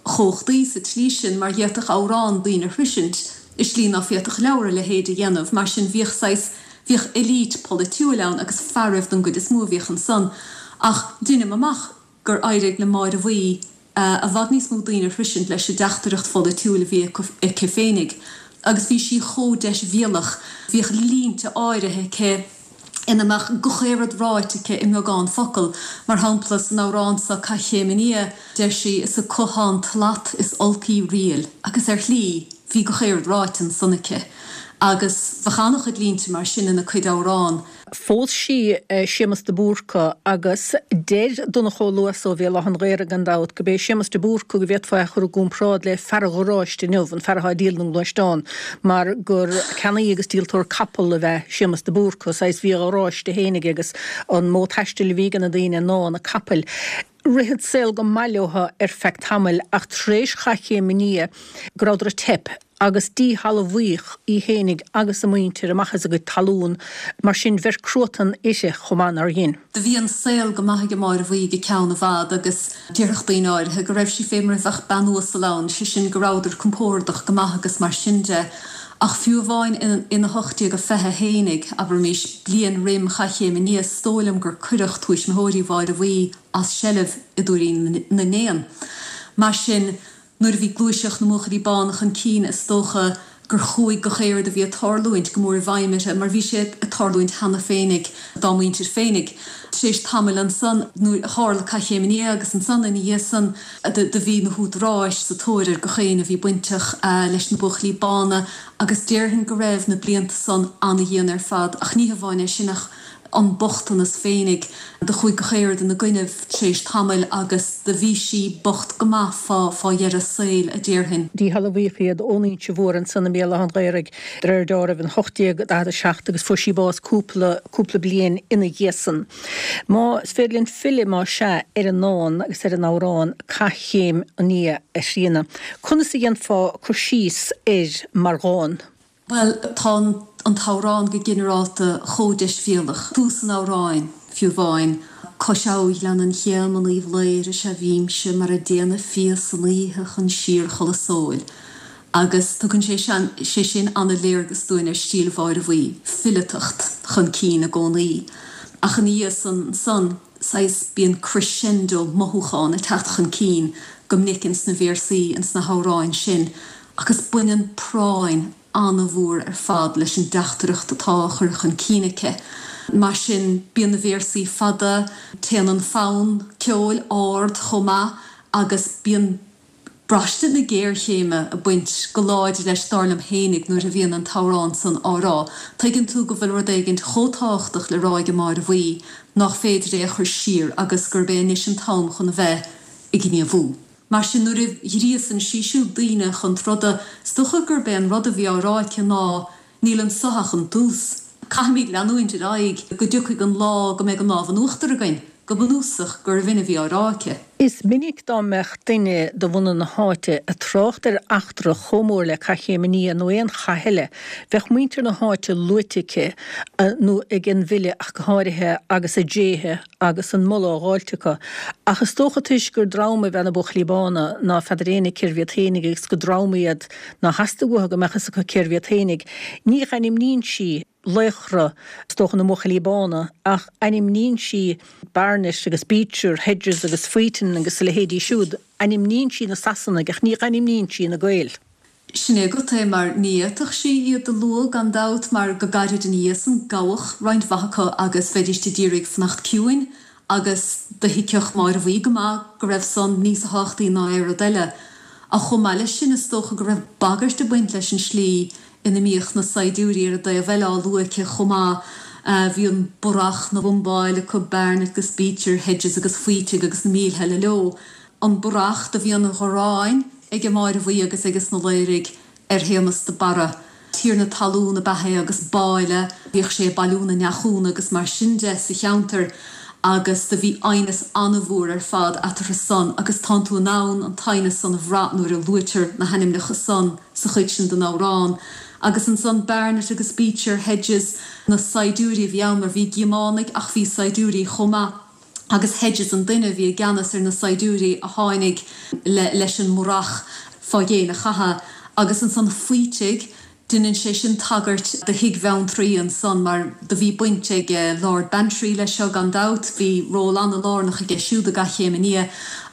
chumhachtaí sa tslí sin mar d'fhéadfadh amhrán daoine a shroisint i slí ná féadfadh leabhar a leithéid a dhéanamh. Mar sin bhíodh saghas, bhíodh elite polaitiúil ann agus fearaibh don gcuid is mó a bhíodh ansan. Ach deinim amach gur éirigh le Máire Bhuí i bhfad níos mó daoine a shroisint leis an dteachtaireacht pholaitiúil a bhí aici féinig. Agus bhí sí chomh deisbhéalach, bhíodh línte áirithe aici ina mbeadh gach aon rud ráite aici i mbeagán focal. Mar shampla, san amhrán seo Cath Chéim an Fhia, deir sí, 'Is acu 'thá an tslat is olcaí riail. Agus ar shlí, bhí gach aon rud ráite ansan aici. Agus bheadh an-chuid línte mar sin ina cuid amhrán. Phós sí Séamus de Búrca agus deir Donncha Ó Luasa ó Bhéal Átha an Ghaorthaidh gan dabht go b'é Séamus de Búrca go bhféadfá é a chur i gcomparáid le fear an gharáiste inniu, an fear atá ag díol na ngluaisteán, mar gur ceannaí agus díoltóir capall ab ea Séamus de Búrca, saghas bhí a gharáiste féin aige agus an modh taistil a bhí ag na daoine ná na capaill. Rith an saol go maith leo ar feadh tamaill ach tar éis Chath Chéim an Fhia go rabhadar ag teip agus díshealbhaíodh í fhéinig agus a muintir amach as a gcuid talún, mar sin bheir cruatan uirthi chomh maith nár dhein. Do bhí an saol go maith ag Máire Bhuí go ceann i bhfad agus déarfadh daoine áirithe go raibh sí fé mar a bheadh bean uasal ann, sé sin go rabhadar compórdach go maith agus mar sin de. Ach fiú amháin in 1820 fhéinig, abraimis, bliain roim Chath Chéim an Fhia, is dóigh liom gur cuireadh tuismitheoirí Mháire Bhuí as seilbh i dTuairín na nÉan. Mar sin, Nuair a bhí gluaiseacht na mBuachaillí Bána chun cinn is dócha gur chuaigh gach aon rud a bhí ag tarlúint go mór i bhfeidhm uirthi mar bhí sé ag tarlúint cheana féinig dá muintir féinig. Tar éis tamaill ansan nuair a tharla Cath Chéim an Fhia agus ansan ina dhiaidh san do bhí na húdaráis sa tóir ar gach éinne a bhí bainteach leis na Buachaillí Bána agus déarfainn go raibh na blianta san ana-dhian ar fad ach ní hamháin é sin ach an bochtanas féinig. Do chuaigh gach aon rud ina gcoinnibh tar éis tamaill agus do bhí sí bocht go maith fá fá dheireadh a saoil, a déarfainn. Díshealbhaíodh iad ón Inse Mhór ansan i mBéal Átha an Ghaorthaidh de réir deáraimh in 1847 agus fuair sí bás cúpla cúpla bliain ina dhiaidh san. Más féidir linn filleadh, más ea, ar an ndán agus ar an amhrán Cath Chéim an Fhia, a Thríona, conas a dhéanfá cur síos air mar dhán? Bhuel, tá an t-amhrán go ginearálta chomh deisbhéalach. Tús an amhráin, fiú amháin, Cois Abha Ghleann an Chéim in Uíbh Laoire is ea bhímse mar a déanadh fia san oíche chun síorchodladh sóil. Agus tugann sé sé sin an-léargas dúinn ar stíl Mháire Bhuí, fileatacht chun cinn i gcónaí. Ach ina dhiaidh san ansan, saghas, bíonn crescendo mothúchán ag teacht chun cinn go minic ins na véarsaí, ins na hamhráin sin agus baineann práinn an-mhór ar fad leis an dteachtaireacht atá á chur chun cinn aici. Mar sin, bíonn na véarsaí fada, téann an fonn ceoil ard chomh maith agus bíonn braistint na géarchéime ag baint go láidir leis, dar liom fhéinig, nuair a bhíonn an t-amhrán san á rá. Tuigeann tú go bhfuil rud éigint chomh tábhachtach le rá ag Máire Bhuí nach féidir é a chur siar agus gurb é anois an t-am chun a bheith ag gníomhú. Mar sin, nuair a ghríosann sí siúd daoine chun troda, is dócha gurb é an rud a bhí á rá aici ná, níl anso ach an tús. Caithfimid leanúint ar aghaidh go dtiocfaidh an lá go mbeidh an lámh in uachtar againn. Go bunúsach, gurbh in a bhí á rá aici. Is minic dá mbeadh duine de bhunadh na háite ag trácht ar eachtra chomh mór le Cath Chéim an Fhia nó aon chath eile, bheadh muintir na háite luaite aici, nó ag an bhfile ach go háirithe, agus a dtréithe agus an moladh á dháilt acu. Ach is dócha toisc gur dream ab ea na Buachaillí Bána ná feadar éinne cérbh iad fhéinig agus gur dream iad ná theastaigh uathu go mbeadh fhios acu cérbh iad fhéinig, ní dh'ainmníonn sí laochra, is dócha, na mBuachaillí Bána, ach ainmníonn sí Barnett agus Beecher, Hedges agus Wheaton agus a leithéidí siúd. Ainmníonn sí na Sasanaigh ach ní dh'ainmníonn sí na Gaeil. Sin é agat é, mar ní fhéadfadh sí iad a lua gan dabht, mar go gairid ina dhiaidh san, gabhadh roinnt mhaith acu agus bheidíst a d'iarraidh fanacht ciúin agus do thuigfeadh Máire Bhuí go maith go raibh san níos tábhachtaí ná aon rud eile. Ach chomh maith leis sin, is dócha go raibh bagairt ag baint leis an slí ina mbíodh na saighdiúirí ar an dtaobh eile á lua aici chomh maith. Bhí an Barrach 'na bhumbáil acu, Barnett agus Beecher, Hedges agus Wheating agus na mílte eile leo. An Barrach, do bhí an ghráin aige Máire Bhuí agus aiges na Laoraigh ar Shéamas de Barra. Tiarna talún ab ea é agus báille, bhíodh sé ag bailiú na ndeachúna agus mar sin de sa cheantar. Agus do bhí aighneas ana-mhór ar fad eatarthu san agus tánn tú in ann an t-aighneas san a bhrath nuair a luaitear na hainmneacha san sa chuid sin den amhrán. Agus ansan Barnett agus Beecher, Hedges, na saighdiúirí a bhí ann mar bhí Gíománaigh ach bhí saighdiúirí chomh maith agus Hedges an duine a bhí i gceannas ar na saighdiúirí a tháinig le leis an mbarrach fá dhéin a chatha. Agus ansan Faoitigh, Deineann sé sin tagairt do Thigh Bheanntraí ansan mar do bhí baint ag Lord Bantry leis seo gan dabht, bhí ról ana-lárnach aige siúd i gCath Chéim an Fhia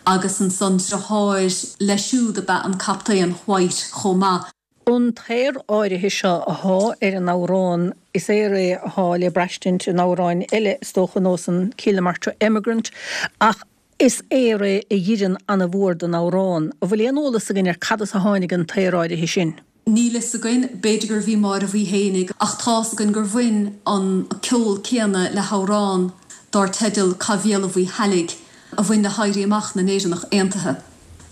agus ansan driotháir leis siúd ab ea an Captaen White chomh maith. An t-aor áirithe seo athá ar an amhrán, is aor é athá le braistint in amhráin eile is dócha, ar nós an Kilnamartra Emigrant, ach Is aor é a dh'oireann ana-mhór don amhrán. An bhfuil aon eolas againn ar cad as a tháinig an t-aor áirithe sin? Níl fhios againn, b'fhéidir gurbh í Máire Bhuí fhéinig, ach tá's againn gur bhain an ceol céanna le hamhrán dár teideal Cath Bhéal an Mhuirthealaigh a bhain le hÉirí Amach na nÉireannach Aontaithe,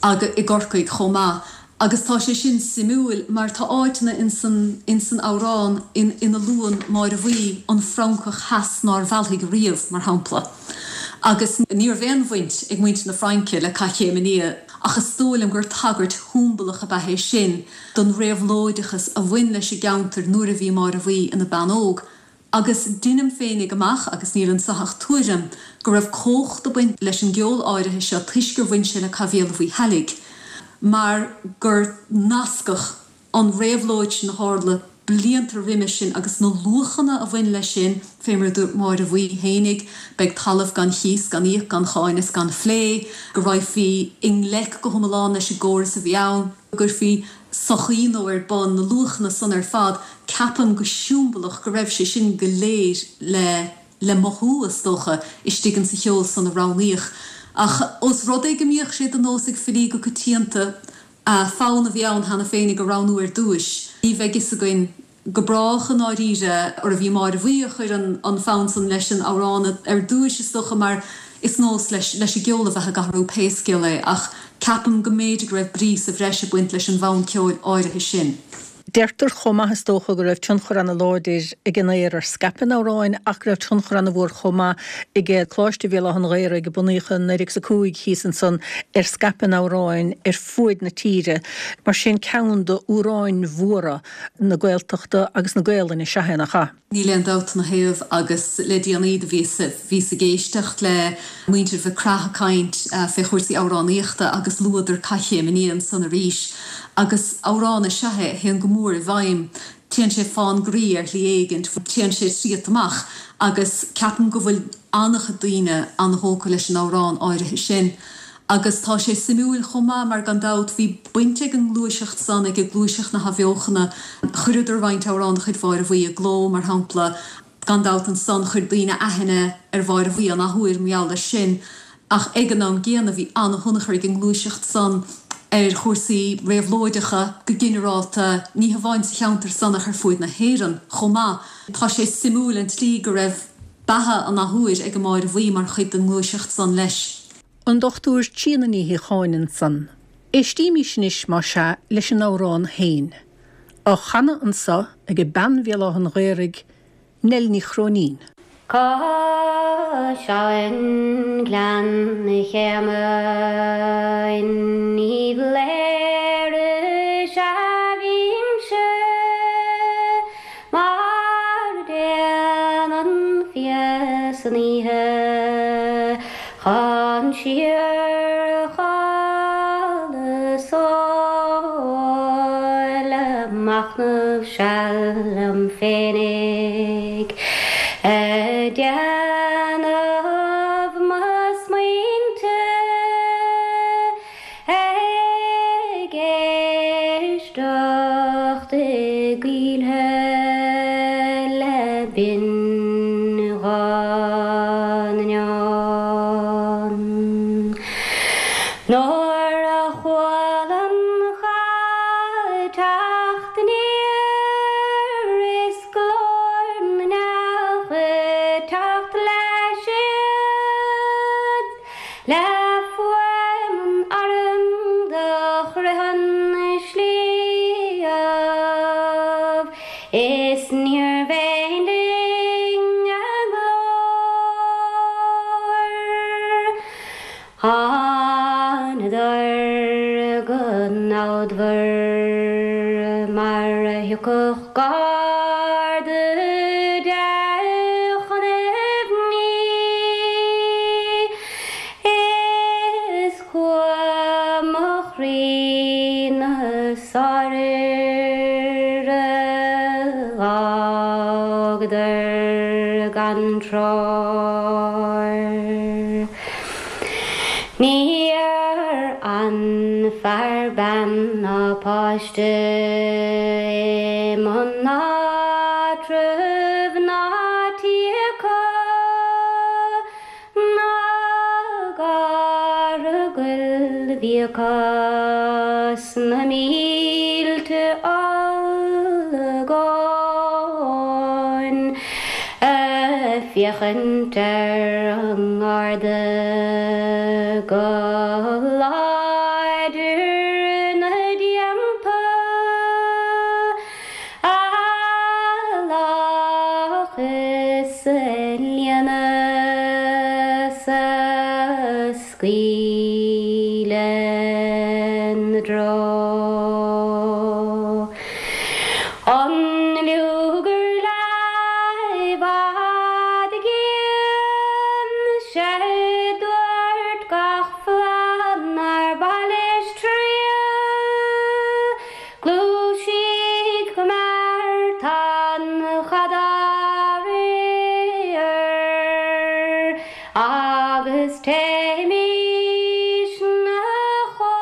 agus i gCorcaigh chomh maith. Agus tá sé sin suimiúil mar tá áiteanna insan insan amhrán ina luann Máire Bhuí an Francach theas nár mheallfaidh riamh, mar shampla. Agus ní raibh aon bhaint ag muintir na Fraince le Cath Chéim an Fhia. Ach is dóigh liom gur tagairt shiombalach ab ea é sin don réabhlóideachas a bhain leis an gceantar nuair a bhí Máire Bhuí ina bean óg. Agus deinim féinig amach, agus níl anso ach tuairim, go raibh cumhacht ag baint leis an gceol áirithe seo toisc gur bhain sé le Cath Bhéal an Mhuirthealaigh, mar gur nascadh an réabhlóid sin a tharla blianta roimis sin agus na luachanna a bhain leis sin, fé mar a dúirt Máire Bhuí fhéinig, beidh talamh gan chíos, gan íoc, gan cháin is gan phlé, go raghfaí i ngleic go hiomlán leis an gcóras a bhí ann, go gcuirfí sochaí nua ar bun, na luachanna san ar fad, ceapaim go siombalach go raibh sé sin go léir le le mothú, is dócha, istigh insa cheol san a roghnaíodh. Ach ós rud é go mbíodh sé de nós ag filí go coitianta, fonn a bhí ann cheana féinig a roghnú ar dtúis. Ní bheidh fhios againn go brách i ndáiríre arbh í Máire Bhuí a chuir an fonn san leis an amhrán ar dtúis, is dócha, mar is nós leis leis an gceol a bheith ag athrú pé scéal é, ach ceapaim go mb'fhéidir go raibh brí sa bhreis ag baint leis an bhfonn ceoil áirithe sin. Deirtear chomh maith, is dócha, go raibh tionchar ana-láidir ag an aor ar scaipeadh an amhráin ach go raibh tionchar ana-mhór chomh maith ag Coláiste Bhéal Átha an Ghaorthaidh, a bunaíodh i 1905 thíos ansan, ar scaipeadh an amhráin ar fuaid na tíre. Mar sin, ceann d'amhráin mhóra na Gaeltachta agus na Gaelainne is ea é, nach ea? Níl aon dabht ina thaobh agus le déanaí do bhíos bhíos ag éisteacht le muintir Mhic Craith ag caint fé chúrsaí amhránaíochta agus luadar Cath Chéim an Fhia ansan arís agus amhrán is ea é a théann go mór i bhfeidhm, téann sé fán gcroí ar shlí éigint, téann sé tríot amach agus ceapaim go bhfuil an-chuid daoine an-thógtha leis an amhrán áirithe sin. Agus tá sé suimiúil chomh maith mar gan dabht bhí baint ag an ngluaiseacht san, ag gluaiseacht na hAthbheochana, chuireadar roinnt amhrán de chuid Mháire Bhuí i gcló, mar shampla. Gan dabht ansan chuir daoine aithne ar Mháire Bhuí an athuair mar gheall air sin. Ach ag an am gcéanna bhí an-thionchar ag an ngluaiseacht san ar chúrsaí réabhlóideacha go ginearálta, ní hamháin sa cheantar san ach ar fuaid na hÉireann chomh maith. Tá sé suimiúil an tslí go raibh beatha an athuair ag an Máire Bhuí mar chuid den ngluaiseacht san leis. An Dr Tríona Ní Shíocháin ansan. Éistímís anois, más ea, leis an amhrán féin. Á chanadh anso ag bean Bhéal Átha an Ghaorthaidh, Nell Ní Chróinín. Cois Abhann Ghleann Chéime in Uíbh Léire is ea bhímse Mar a déanann fia san oíche chun síorchodladh 's óil ag machnamh seal liom féinig ag déanamh mo smaointe Ag éisteacht i gcoillthe le binnghuth na n-éan. Nuair a chuala an cath ag teacht aniar is glór na n-each ag teacht leis iad, Le fuaim an airm do chroith an sliabh, Is níorbh aon linn a nglór. Bródmhar mar a thiocfadh garda de chun aibhní Is cumha mo chroí na sáirfhir a dh'fhágadar gan treoir. Níor fhan fear, bean ná páiste i mbun áitreabh ná tí acu ná garrdha goil a bhí acu sna mílte olagón. Ag féachaint ar an nGarda go láidir ina dteannta, a lách is a líonadh 's a scaoileadh 'na dtreo. An luathar le i bhfad i gcéin, 'sé dúirt gach flann nár mhaith leis triall, Gluaisigh go mear, tá an cad á riar, agus téimis 'na chóir.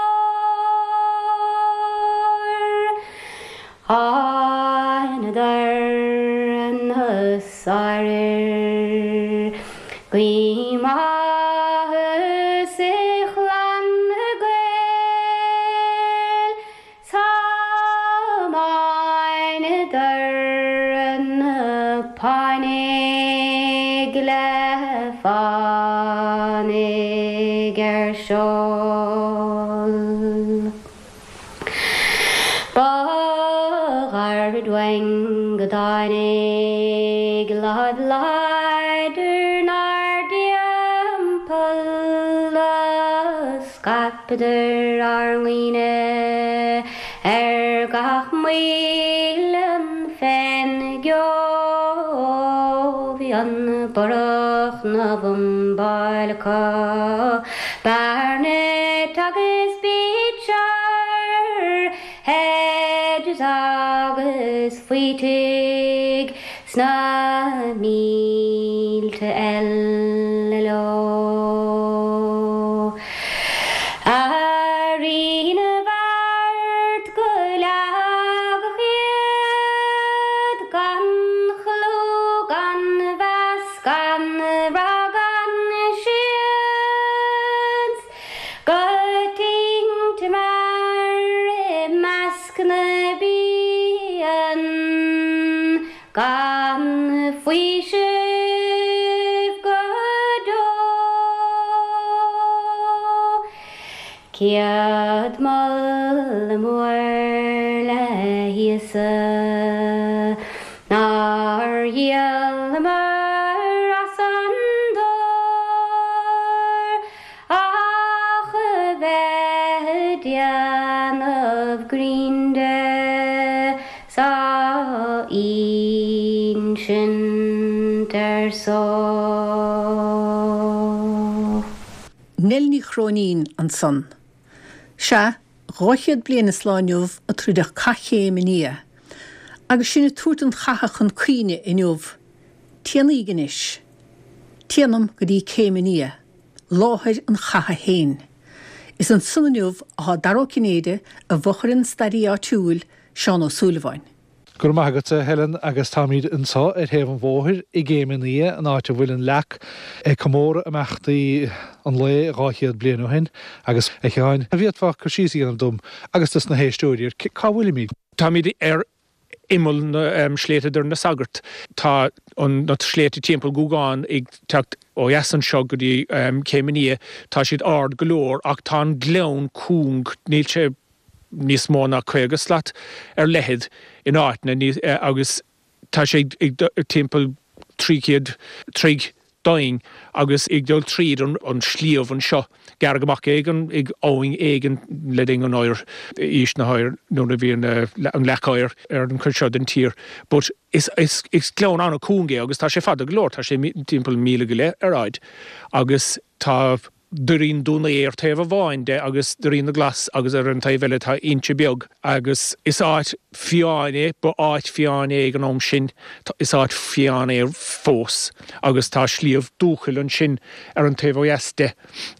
Thánadar na sáirfhir, guím áthas ar chlann na Gael, 's thiomáineadar na Páinigh le fánaidh ar seol. Ba ghairid uainn go dtáinig láimh láidir 'nár dtimpeall a scaipeadar ár ndaoine ar gach muileann fén gceo. Bhí an borradh 'na bhumbáil acu. Barnett agus Beecher, Hedges agus Faoitigh sna mílte eile leo. A Rí na bhFeart go leagadh iad gan chlú gan mheas Gan rath gan seans go tinte mear i measc na bpian gan faoiseamh go deo. Céad moladh mór le hÍosa nár dhíolamar as an dtor ach a bheith ag déanamh grinn de 's á insint ar só. Nell Ní Chróinín ansan. Sea, 200 bliain is lá inniu a troideadh Cath Chéim an Fhia. Agus sinn ag tabhairt an chatha chun cuimhne inniu, téanaíg anois. Téanam go dtí Céim an Fhia, láthair an chatha fhéin. Is ansan inniu athá Dara Ó Cinnéide i bhfochair an staraí áitiúil, Seán Ó Súilleabháin. Go raibh maith agat, a Helen, agus táimid anseo ar thaobh an bhóthair i gCéim an Fhia, an áit a bhfuil an leac ag comóradh imeachtaí an lae 200 bliain ó shin. Agus, a Sheáin, an bhféadfá cur síos a dhéanamh dom agus dos na héisteoirí ar cá bhfuilimid? Táimid ar imeall na sléibhte Doire na Sagart. Tá na sléibhte timpeall Ghúgán ag teacht ó dheas anseo go dtí Céim an Fhia. Tá siad ard go leor ach tá an gleann cúng, níl sé níos mó ná 50 slat ar leithead in áiteanna agus tá sé ag timpeall 300 troigh. doimhin agus ag dul tríd an sliabh anseo. Gearradh amach é ag abhainn éigin le linn an oighir, aois na hoighir, nuair a bhí an leac oighir ar an chuid seo den tír. But is gleann an-cúng é agus tá sé fada go leor, tá sé timpeall míle go leith ar fhaid agus tá Doirín Dún Aodha ar taobh amháin de agus Doirín na Glas agus ar an taobh eile tá Inse Beag agus is áit fiáin é, ba áit fiáin é ag an am sin, is áit fiáin é fós agus tá sliabh Dúchoill ansin ar an taobh ó dheas de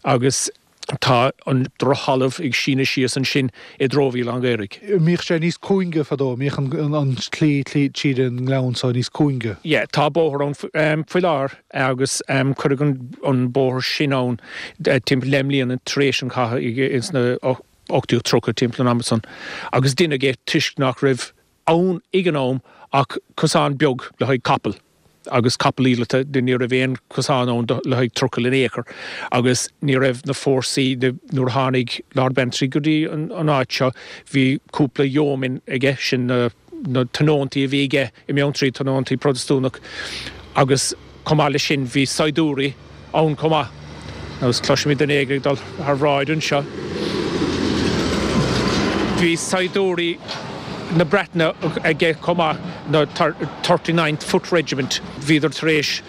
agus tá an drochthalamh ag síneadh síos ansin i dtreo Mhíl an Ghaorthaidh. Mbíodh sé níos cúinge fadó, mbíodh an tslí tríd an ngleann so níos cúinge. Yeah, tá bóthar ann faoi láthair agus cuireadh an bóthar sin ann timpeall deich mbliana tar éis an chatha ins na 1830 timpeall an ama san agus deineadh é toisc nach raibh ann ag an am ach cosán beag le haghaidh capall agus capall íleata, ní raibh aon chosán ann le haghaidh trucail in aon chor agus ní raibh na fórsaí, nuair a tháinig Lord Bantry go dtí an áit seo bhí cúpla yeoman aige, sin na tionóntaí a bhí aige i mBeanntraí, tionóntaí Protastúnach agus chomh maith leis sin bhí saighdiúirí ann chomh maith. Agus cloisimid duine éigin ag dul thar bhráid anseo. Bhí saighdiúirí na Breataine aige chomh maith, na Thirty Ninth Foot Regiment. Bhíodar tar éis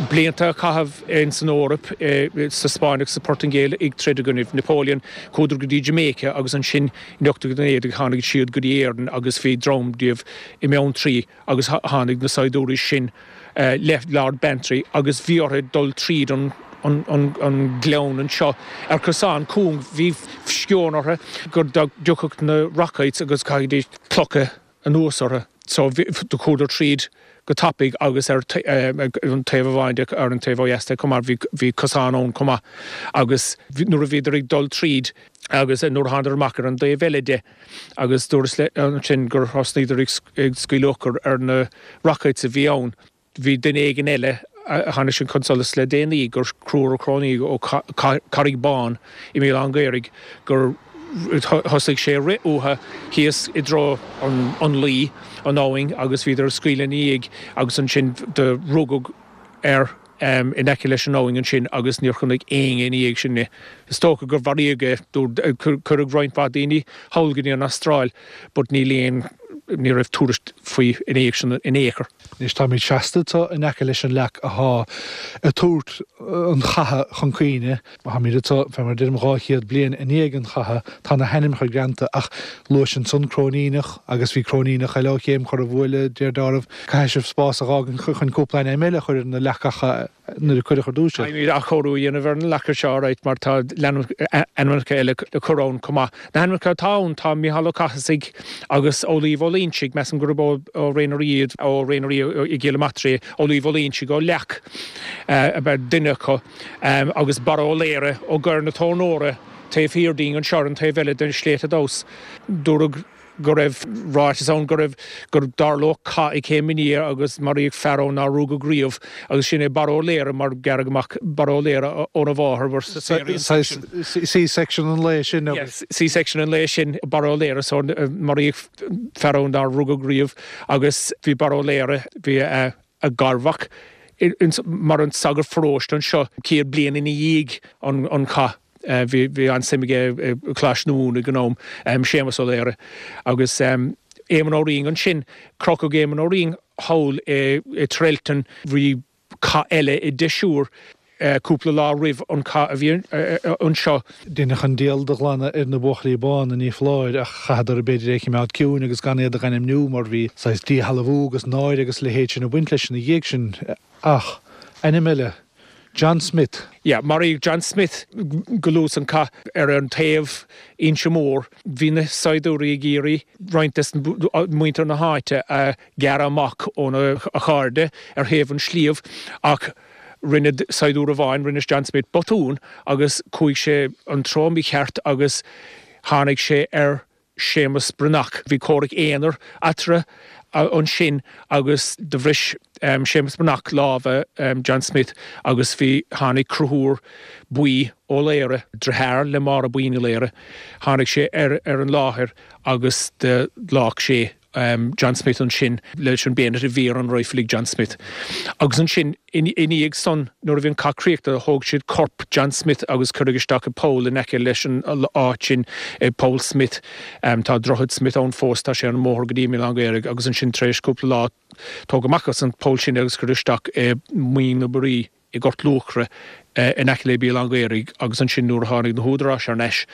blianta a chaitheamh ins an Eoraip, sa Spáinn agus sa Phortaingéil ag troid i gcoinnibh Napoleon. Chuadar go dtí Jamaica agus ansin in 1819 tháinig siad go dtí Éirinn agus bhí dream díobh i mBeanntraí agus tháinig na saighdiúirí sin le Lord Bantry agus bhí orthu dul tríd an gleann anseo ar chosán cúng. Bhí sceon orthu go dtiocfadh na rockets agus chaithfidís clocha anuas orthu. So do chuadar tríd go tapaidh agus ar an taobh amháin de, ar an taobh ó dheas de chomh maith, bhí cosán ann chomh maith agus nuair a bhíodar ag dul tríd agus nuair a thánadar amach ar an dtaobh eile de, agus dúras ansin gur thosnaíodar ag scaoileadh urchar ar na rockets a bhí ann. Bhí duine éigin eile a tháinig sin chun solais le déanaí gur Conchúr Ó Cróinín ó Carraig Bán i Míol an Ghaorthaidh gur thosaigh sé ag rith uathu thíos i dtreo an Laoi, an abhainn, agus bhíodar ag scaoileadh ina dhiaidh agus ansin do rugadh air. in aice leis an abhainn ansin agus níor chonaic éinne ina dhiaidh sin é. Is dócha gur mharaíodh é. Cuireadh roinnt mhaith daoine thall go dtí an Astráil but níl aon, ní raibh tuairisc faoi ina dhiaidh sin in aon chor. Anois táimid seasta anseo in aice leis an leac athá ag tabhairt an chatha chun cuimhne. Táimid anseo, fé mar a deirim, 200 bliain i ndiaidh an chatha. Tá na hainmneacha greanta ach luais ansan Cróiníneach agus bhí Cróiníneach eile ó Chéim Chorr an Bhuaile, deir deáramh. Caithfidh sibh spás a dh'fhágaint chun cúpla ainm eile a chur ar na leacacha nuair a cuireadh ar dtús iad. Caithfimid athchóiriú a dhéanamh ar na leaca seo, alright, mar tá ainmneacha eile le cur ann chomh maith. Na hainmneacha atá ann, tá Micheál Ó Cathasaigh agus Ó Laoibh Ó Loinsigh, measaim gurb ó Ré na Rí iad, ó Ré na Rí i gCill Matraí, Ó Laoibh Ó Loinsigh ó Leac ab ea duine acu. Agus Barra Ó Laoire ó gCoir na Tornóra taobh thiar dínn anseo ar an taobh eile den sléibhte domhas. Dúradh go raibh ráiteas ann go raibh, go dtarlódh cath ag Céim an Fhia agus maraíodh fear ann nár rugadh riamh agus sin é Barra Ó Laoire mar gearradh amach Barra Ó Laoire óna mháthair mar Saghas C-section an lae sin agus. C-section an lae sin Barra Ó Laoire so maraíodh fear ann nár rugadh riamh agus bhí Barra Ó Laoire, bhí a. a garmhac mar an sagart pharóiste anseo 100 bliain ina dhiaidh an chath. Bhí an-suim aige i gColáiste na Mumhan ag an am, Séamus Ó Laoire. Agus Éamonn Ó Riain ansin, crochadh Éamonn Ó Riain thall i Trelton, bhí cath eile i Deshur cúpla lá roimh an chath a bhí anseo. Deineadh an diabhal de ghlanadh ar na Buachaillí Bána, ní foláir, ach chaitheadar b'fhéidir é a chimeád ciúin agus gan iad a dh'ainmniú mar bhí saghas díshealbhú agus náire agus a leithéid sin ag baint leis ina dhiaidh sin. Ach, ainm eile, John Smith. Yeah, maraíodh John Smith go luath san cath ar an taobh Inse Mór. Bhí na saighdiúirí ag iarraidh roinnt des muintir na háite a ghearradh amach óna chairde ar thaobh an sliabh ach Rinne saighdiúir amháin, rinne John Smith botún agus chuaigh sé an treo mícheart agus tháinig sé ar Séamus Breathnach. Bhí comhrac aonair eatarthu ansin agus do bhris Séamus Breathnach lámha John Smith agus bhí, tháinig Conchúr Buí Ó Laoire, driotháir le Máire Buí Ní Laoire, tháinig sé ar an láthair agus do leag sé. John Smith ansin leis an bayonet a bhí ar an rifle ag John Smith. Agus ansin ina dhiaidh san nuair a bhí an cath críochnaithe thóg siad corp John Smith agus cuireadh isteach i poll in aice leis an áit sin, Poll Smith. Tá Droichead Smith ann fós, tá sé ar an mbóthar go dtí an Míolán Caorach agus ansin tar éis cúpla lá tógadh amach as an poll sin é agus cuireadh isteach i Muing na Buirí i nGort Luachra in aice le Béal Átha an Ghaorthaidh agus ansin nuair a tháinig na húdaráis thar n-ais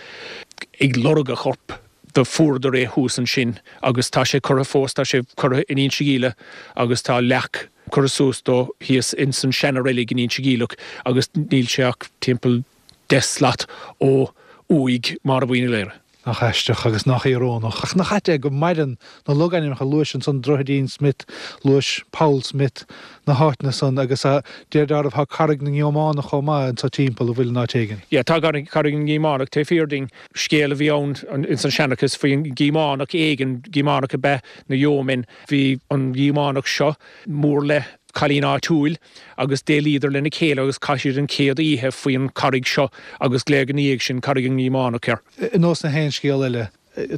ag lorg a chorp do fuaireadar é thuas ansin agus tá sé curtha fós, tá sé curtha in Inse Geimhleach agus tá leac curtha suas dó thíos ins an seana-reilig in Inse Geimhleach agus níl sé ach timpeall 10 slat ó uaigh Mháire Bhuí Ní Laoire. Nach aisteach agus nach íorónach. Ach nach ait é go maireann na logainmneacha, luais ansan Droichidín Smith, luais Poll Smith, na háiteanna san agus de réir dealraimh tá Carraig na nGíománach chomh maith anso timpeall, an bhfuil in áit éigin? Yeah, tá Carraig na nGíománach taobh thiar dínn. Scéal a bhí ann ins an seanchas faoin Gíománach éigin, Gíománach ab ea na yeomen. Bhí an Gíománach seo mór le cailín áitiúil agus d'éalaíodar lena chéile agus chaith siad an chéad oíche faoin charraig seo agus glaodh ina dhiaidh sin Carraig an nGíománach air. Ar nós na haon scéal eile,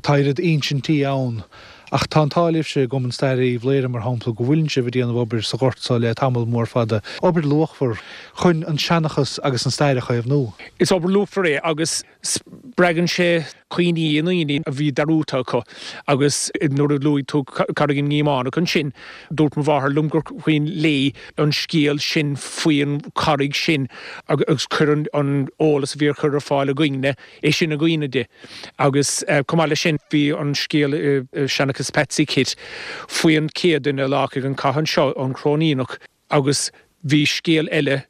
tá oiread insintí ann, ach tá an t-ádh libhse i gCumann Staire Uíbh Laoghaire, mar shampla, go bhfuileann sibh ag déanamh obair sa ghort so le tamall mór fada, obair luachmhar chun an seanchas agus an stair a chaomhnú. Is obair luachmhar é agus Spreagann sé cuimhní i ndaoine a bhí dearúdta acu agus nuair a luaigh tú Carraig na nGíománach ansin, dúirt mo mháthair liom gur cuimhin léi an scéal sin faoin charraig sin agus chuir an eolas a bhí á chur ar fáil againne é sin i gcuimhne di. Agus chomh maith leis sin bhí an scéal i Seanchas Patsy Kitt faoin chéad duine a laghadh ag an cath anseo, an Cróiníneach, agus bhí scéal eile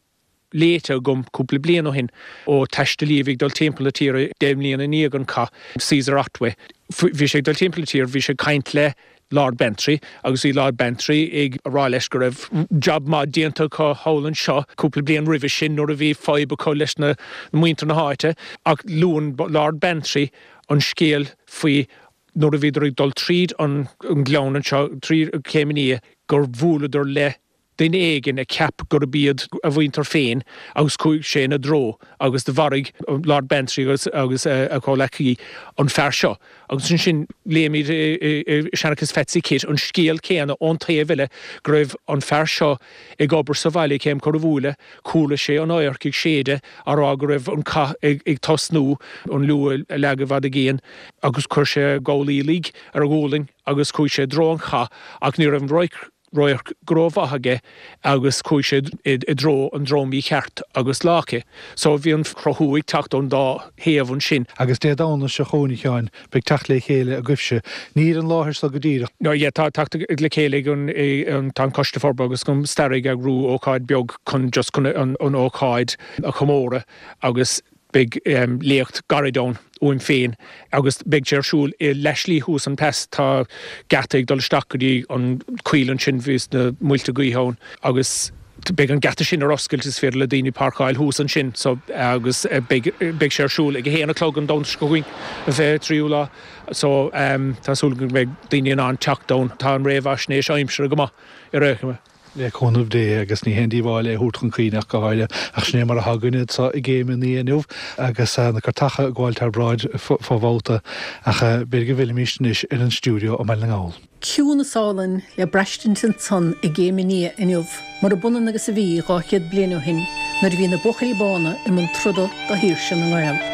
léite agam cúpla bliain ó shin ó taistealaí a bhí ag dul timpeall na tíre 10 mbliana i ndiaidh an cath, Caesar Otway. Bhí sé ag dul timpeall na tíre, bhí sé ag caint le Lord Bantry agus bhí Lord Bantry ag rá leis go raibh job maith déanta acu thall anseo cúpla bliain roimhe sin nuair a bhí fadhb acu leis na muintir na háite ach luann Lord Bantry an scéal faoi nuair a bhíodar ag dul tríd an ngleann anseo, trí Chéim an Fhia, gur bhuaileadar le duine éigin a cheap gurb iad a mhuintir féin agus chuaigh sé ina dtreo agus do mharaigh Lord Bantry agus agus a chomhleacaí an fear seo. Agus ansin léimid i Seanchas Phatsy Kitt an scéal céanna ón taobh eile go raibh an fear seo ag obair sa bhaile ag Céim Corrabhuaile, chuala sé an adharc ag séideadh á rá go raibh an cath ag tosnú, an liú a leagadh i bhfad i gcéin agus chuir sé a ghabhlaí uilig ar a ghualainn agus chuaigh sé i dtreo an chath ach ní raibh an radharc radharc go rómhaith aige agus chuaigh sé i dtreo an treo mícheart agus laghadh é. So bhí an cruthú ag teacht ón dá thaobh ansin. Agus Dé Domhnaigh seo chugainn, a Sheáin, beidh teacht le chéile agaibhse. Ní ar an láthair so go díreach. No yeah, tá teacht le chéile ag an, tá an Coiste Forbartha agus an Staire ag eagrú ócáid beag chun just chun an ócáid a chomóradh agus Beidh léacht gairid ann uaim féin agus beidh sé ar siúl i leathshlí thuas an pas. Tá geata ag dul isteach go dtí an coill ansin, bhíos na muilte gaoithe ann agus beidh an geata sin ar oscailt, is féidir le daoine páirceáil thuas ansin so agus beidh beidh sé ar siúl ag a haon a chlog an Domhnach seo chugainn, an 23ú lá. So tá súil agam go mbeidh daoine in ann teacht ann. Tá an réamhaisnéis aimsire go maith ar aon chuma. Le cúnamh Dé, agus ní haon díobháil é a thabhairt chun cuimhne ach go háirithe, ach sin é mar atá againne anso i gCéim an Fhia inniu, agus na cairteacha ag gabháil thar bráid fo bhabhta, ach b'fhéidir go bhfillfimís anois ar an stiúideo i mBaile na nGall. Ciúnas álainn le braistint ansan i gCéim an Fhia inniu, murab ionann agus a bhí 200 bliain ó shin nuair a bhí na Buachaillí Bána i mbun troda do shaoirse na nGael.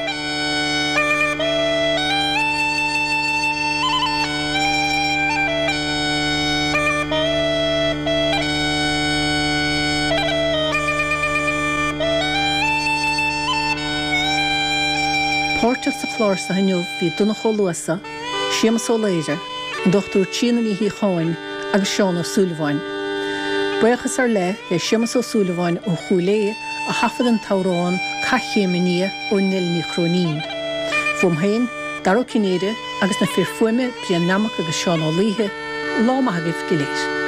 Páirteach sa chlár seo inniu bhí Donncha Ó Luasa, Séamus Ó Laoire, an Dr Tríona Ní Shíocháin agus Seán Ó Súilleabháin. Buíochas ar leith le Séamus Ó Súilleabháin ó Chúil Aodha a thaifead an t-amhrán Cath Chéim an Fhia ó Neil Ní Chróinín. Uaim féin, Dara Ó Cinnéide agus na fir fuaime Brian Nammock agus Seán Ó Laoithe, lá maith agaibh go léir.